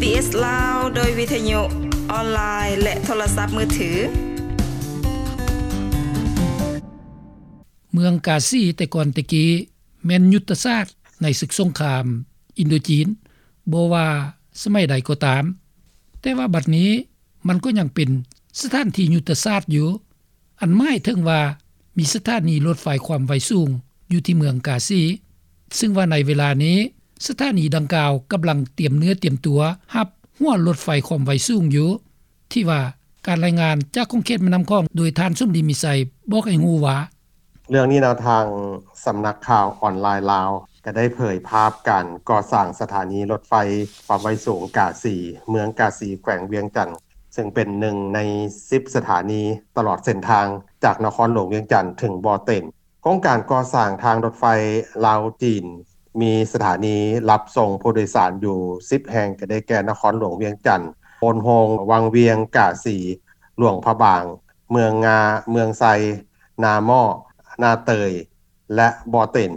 ບີເອສ ລາວ ໂດຍວິທະຍຸອອນລາຍ ແລະ ໂທລະສັບມືຖື. ເມືອງກາຊີແຕ່ກ່ອນແຕ່ກີ້ແມ່ນຍຸດທະສາດໃນສຶກສົງຄາມອິນໂດຈີນ ບໍ່ວ່າສະໄໝໃດກໍຕາມ, ແຕ່ວ່າບັດນີ້ມັນກໍຍັງເປັນສະຖານທີ່ຍຸດທະສາດຢູ່. ອັນໝາຍເຖິງວ່າມີສະຖານີລົດໄຟຄວາມໄວສູງຢູ່ທີ່ເມືອງກາຊີ, ຊຶ່ງວ່າໃນເວລານີ້ສະຖານີດັ່ງກ່າວກຳລັງຕຽມເນື້ອຕຽມຕົວຮັບຫົວລົດໄຟຄວາມໄວສູງຢູ່, ທີ່ວ່າການລາຍງານຈາກຂົງເຂດແມ່ນ້ຳຂອງໂດຍທ່ານສົມດີ ມີໄຊ ບອກໃຫ້ຮູ້ວ່າ ເລື່ອງນີ້ນະ ທາງສຳນັກຂ່າວອອນລາຍລາວ ກໍໄດ້ເຜີຍພາບການກໍ່ສ້າງສະຖານີລົດໄຟຄວາມໄວສູງກາສີ, ເມືອງກາສີ ແຂວງວຽງຈັນ ເຊິ່ງເປັນໜຶ່ງໃນສິບສະຖານີຕະຫຼອດເສັ້ນທາງຈາກນະຄອນຫຼວງວຽງຈັນເຖິງບໍ່ເຕັນ. ໂຄງການກໍ່ສ້າງທາງລົດໄຟລາວ-ຈີນ ມີສະຖານີຮັບສົ່ງຜູ້ໂດຍສານຢູ່ສິບແຫ່ງ ກໍໄດ້ແກ່ ນະຄອນຫຼວງວຽງຈັນ, ໂພນໂຮງ, ວັງວຽງ, ກາສີ, ຫຼວງພະບາງ, ເມືອງງາ, ເມືອງໄຊ, ນາໝໍ້, ນາເຕີຍ ແລະ ບໍ່ເຕັນ,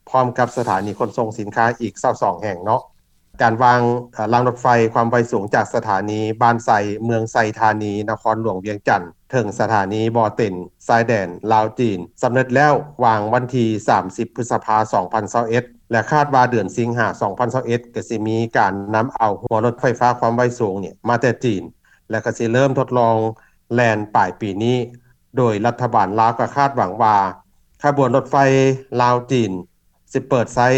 ພ້ອມກັບສະຖານີຂົນສົ່ງສິນຄ້າອີກຊາວສອງແຫ່ງເນາະ. ການວາງ ເອີ ລາງລົດໄຟຄວາມໄວສູງຈາກສະຖານີບ້ານໄຊ ເມືອງໄຊທານີ ນະຄອນຫຼວງວຽງຈັນ ເຖິງສະຖານີບໍ່ເຕັນ ຊາຍແດນລາວ-ຈີນ ສຳເລັດແລ້ວ ວາງວັນທີສາມສິບ ພຶດສະພາ ສອງພັນຊາວເອັດ ແລະ ຄາດວ່າເດືອນສິງຫາ ສອງພັນຊາວເອັດ ກໍຊິມີການນຳເອົາຫົວລົດໄຟຟ້າຄວາມໄວສູງນີ້ມາແຕ່ຈີນ ແລະ ກໍຊິເລີ່ມທົດລອງແລ່ນປາຍປີນີ້. ໂດຍລັດຖະບານລາວກໍຄາດຫວັງວ່າ ຂະບວນລົດໄຟລາວ-ຈີນ ຊິເປີດໃຊ້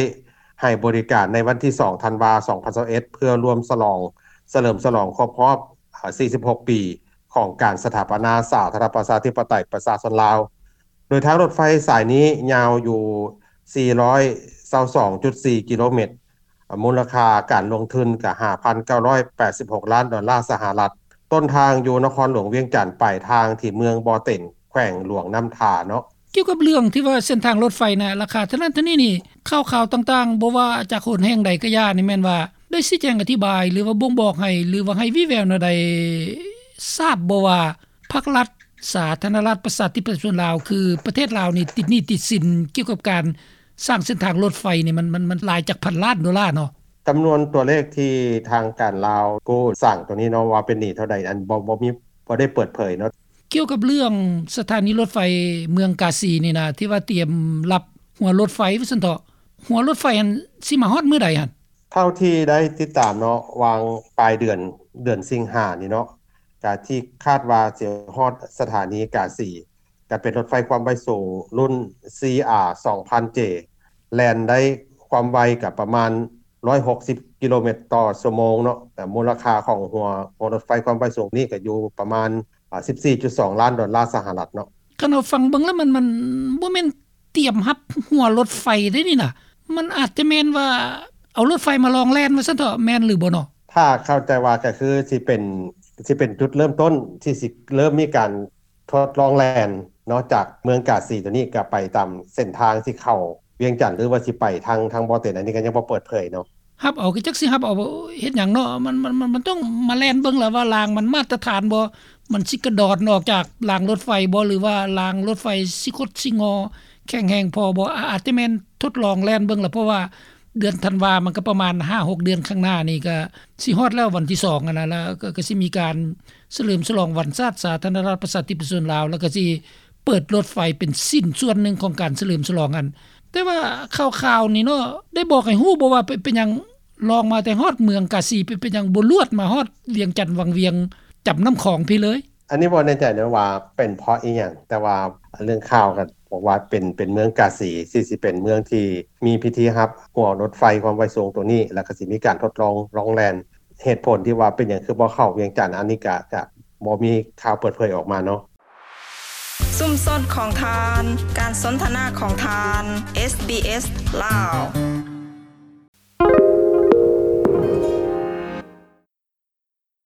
ໃຫ້ບໍລິການໃນວັນທີສອງ ທັນວາ ສອງພັນຊາວເອັດ ເພື່ອລວມສະຫຼອງ ສະເຫຼີມສະຫຼອງຄົບຮອບ ເອີ ສີ່ສິບຫົກປີຂອງການສະຖາປະນາສາທາລະນະລັດ ປະຊາທິປະໄຕ ປະຊາຊົນລາວ. ໂດຍທາງລົດໄຟສາຍນີ້ຍາວຢູ່ ສີ່ຮ້ອຍຊາວສອງຈຸດສີ່ ກິໂລແມັດ, ມູນລະຄ່າການລົງທຶນກໍ ຫ້າພັນເກົ້າຮ້ອຍແປດສິບຫົກລ້ານດອນລາສະຫະລັດ. ຕົ້ນທາງຢູ່ນະຄອນຫຼວງວຽງຈັນ, ປາຍທາງທີ່ເມືອງບໍ່ເຕັນ, ແຂວງຫຼວງນ້ຳທາເນາະ. ກ່ຽວກັບເລື່ອງທີ່ວ່າເສັ້ນທາງລົດໄຟນະ ລາຄາເທົ່ານັ້ນເທົ່ານີ້ນີ້, ຂ່າວໆຕ່າງໆ ບໍ່ວ່າຈາກຫົນແຫ່ງໃດກະຢ່ານີ້ ແມ່ນວ່າໄດ້ຊີ້ແຈງອະທິບາຍ ຫຼືວ່າບົ່ງບອກໃຫ້ ຫຼືວ່າໃຫ້ວີ່ແວວແນວໃດ ຊາບບໍ່ວ່າພັກລັດ ສາທາລະນະລັດ ປະຊາທິປະໄຕ ປະຊາຊົນລາວ ຄືປະເທດລາວນີ້ ຕິດໜີ້ຕິດສິນກ່ຽວກັບການສ້າງເສັ້ນທາງລົດໄຟນີ້ ມັນ ມັນ ມັນຫຼາຍຈັກພັນລ້ານໂດລາເນາະ? ຈຳນວນຕົວເລກທີ່ທາງການລາວກູ້ສ້າງໂຕນີ້ເນາະ ວ່າເປັນໜີ້ເທົ່າໃດ ອັນ ບໍ່ ບໍ່ມີ ບໍ່ໄດ້ເປີດເຜີຍເນາະ. ກ່ຽວກັບເລື່ອງສະຖານີລົດໄຟເມືອງກາສີນີ້ນະ ທີ່ວ່າຕຽມຮັບຫົວລົດໄຟວ່າຊັ້ນເຖາະ, ຫົວລົດໄຟຫັ້ນຊິມາຮອດມື້ໃດຫັ້ນ? ເທົ່າທີ່ໄດ້ຕິດຕາມເນາະ ຫວ່າງປາຍເດືອນ ເດືອນສິງຫານີ້ເນາະ ກະທີ່ຄາດວ່າຊິຮອດສະຖານີກາສີ ກະເປັນລົດໄຟຄວາມໄວສູງລຸ້ນ ຊີອາ ສອງພັນເຈ ແລ່ນໄດ້ຄວາມໄວກະປະມານ ຮ້ອຍຫົກສິບກິໂລແມັດຕໍ່ຊົ່ວໂມງເນາະ, ແຕ່ມູນລະຄ່າຂອງຫົວ ຫົວລົດໄຟຄວາມໄວສູງນີ້ກໍຢູ່ປະມານ ອາ ສິບສີ່ຈຸດສອງລ້ານດອນລາສະຫະລັດເນາະ. ຄັນເຮົາຟັງເບິ່ງແລ້ວ ມັນ ມັນບໍ່ແມ່ນຕຽມຮັບຫົວລົດໄຟເດ້ນີ້ນະ, ມັນອາດຈະແມ່ນວ່າເອົາລົດໄຟມາລອງແລ່ນວ່າຊັ້ນເຖາະ, ແມ່ນຫຼືບໍ່ເນາະ? ຖ້າເຂົ້າໃຈວ່າກໍຄືຊິເປັນ ຊິເປັນຈຸດເລີ່ມຕົ້ນທີ່ຊິເລີ່ມມີການ ທົດລອງແລ່ນເນາະ ຈາກເມືອງກາສີໂຕນີ້ກໍໄປຕາມເສັ້ນທາງທີ່ເຂົ້າວຽງຈັນ ຫຼືວ່າຊິໄປທາງ ທາງບໍ່ເຕັນ ອັນນີ້ກໍຍັງບໍ່ເປີດເຜີຍເນາະ. ຮັບເອົາ ກໍຈັກຊິຮັບເອົາເຮັດຫຍັງເນາະ, ມັນ ມັນ ມັນ ມັນຕ້ອງມາແລ່ນເບິ່ງລະວ່າລາງມັນມາດຕະຖານບໍ່, ມັນຊິກະດອນອອກຈາກລາງລົດໄຟບໍ່ ຫຼືວ່າລາງລົດໄຟຊິຄົດຊິງໍແຂງແຮງພໍບໍ່. ອາ ອາດຈະແມ່ນທົດລອງແລ່ນເບິ່ງລະ ເພາະວ່າ ເດືອນທັນວາ ມັນກໍປະມານຫ້າຫົກເດືອນຂ້າງໜ້ານີ້ ກໍຊິຮອດແລ້ວ ວັນທີສອງຫັ້ນນະ, ແລ້ວກໍ ກໍຊິມີການສະເຫຼີມສະຫຼອງວັນຊາດສາທາລະນະລັດ ປະຊາທິປະຊາຊົນລາວ, ແລ້ວກໍຊິເປີດລົດໄຟເປັນຊິ້ນສ່ວນໜຶ່ງຂອງການສະເຫຼີມສະຫຼອງຫັ້ນ. ແຕ່ວ່າຂ່າວໆນີ້ເນາະ ໄດ້ບອກໃຫ້ຮູ້ບໍ່ວ່າ ເປັນ ເປັນຫຍັງລອງມາແຕ່ຮອດເມືອງກາສີ ເປັນ ເປັນຫຍັງບໍ່ລວດມາຮອດວຽງຈັນວັງວຽງ ຈຳນ້ຳຂອງພີ້ເລີຍ? ອັນນີ້ບໍ່ແນ່ໃຈນະວ່າເປັນເພາະອີ່ຫຍັງ, ແຕ່ວ່າເລື່ອງຂ່າວກໍບອກວ່າເປັນ ເປັນເມືອງກາສີ ຊິ ຊິເປັນເມືອງທີ່ມີພິທີຮັບຫົວລົດໄຟຄວາມໄວສູງໂຕນີ້ ແລ້ວກໍຊິມີການທົດລອງລອງແລ່ນ. ເຫດຜົນທີ່ວ່າເປັນຫຍັງຄືບໍ່ເຂົ້າວຽງຈັນ ອັນນີ້ກະ ກະບໍ່ມີຂ່າວເປີດເຜີຍອອກມາເນາະ. ຊຸມຊົນຂອງທ່ານ, ການສົນທະນາຂອງທ່ານ, ເອສບີເອສ ລາວ.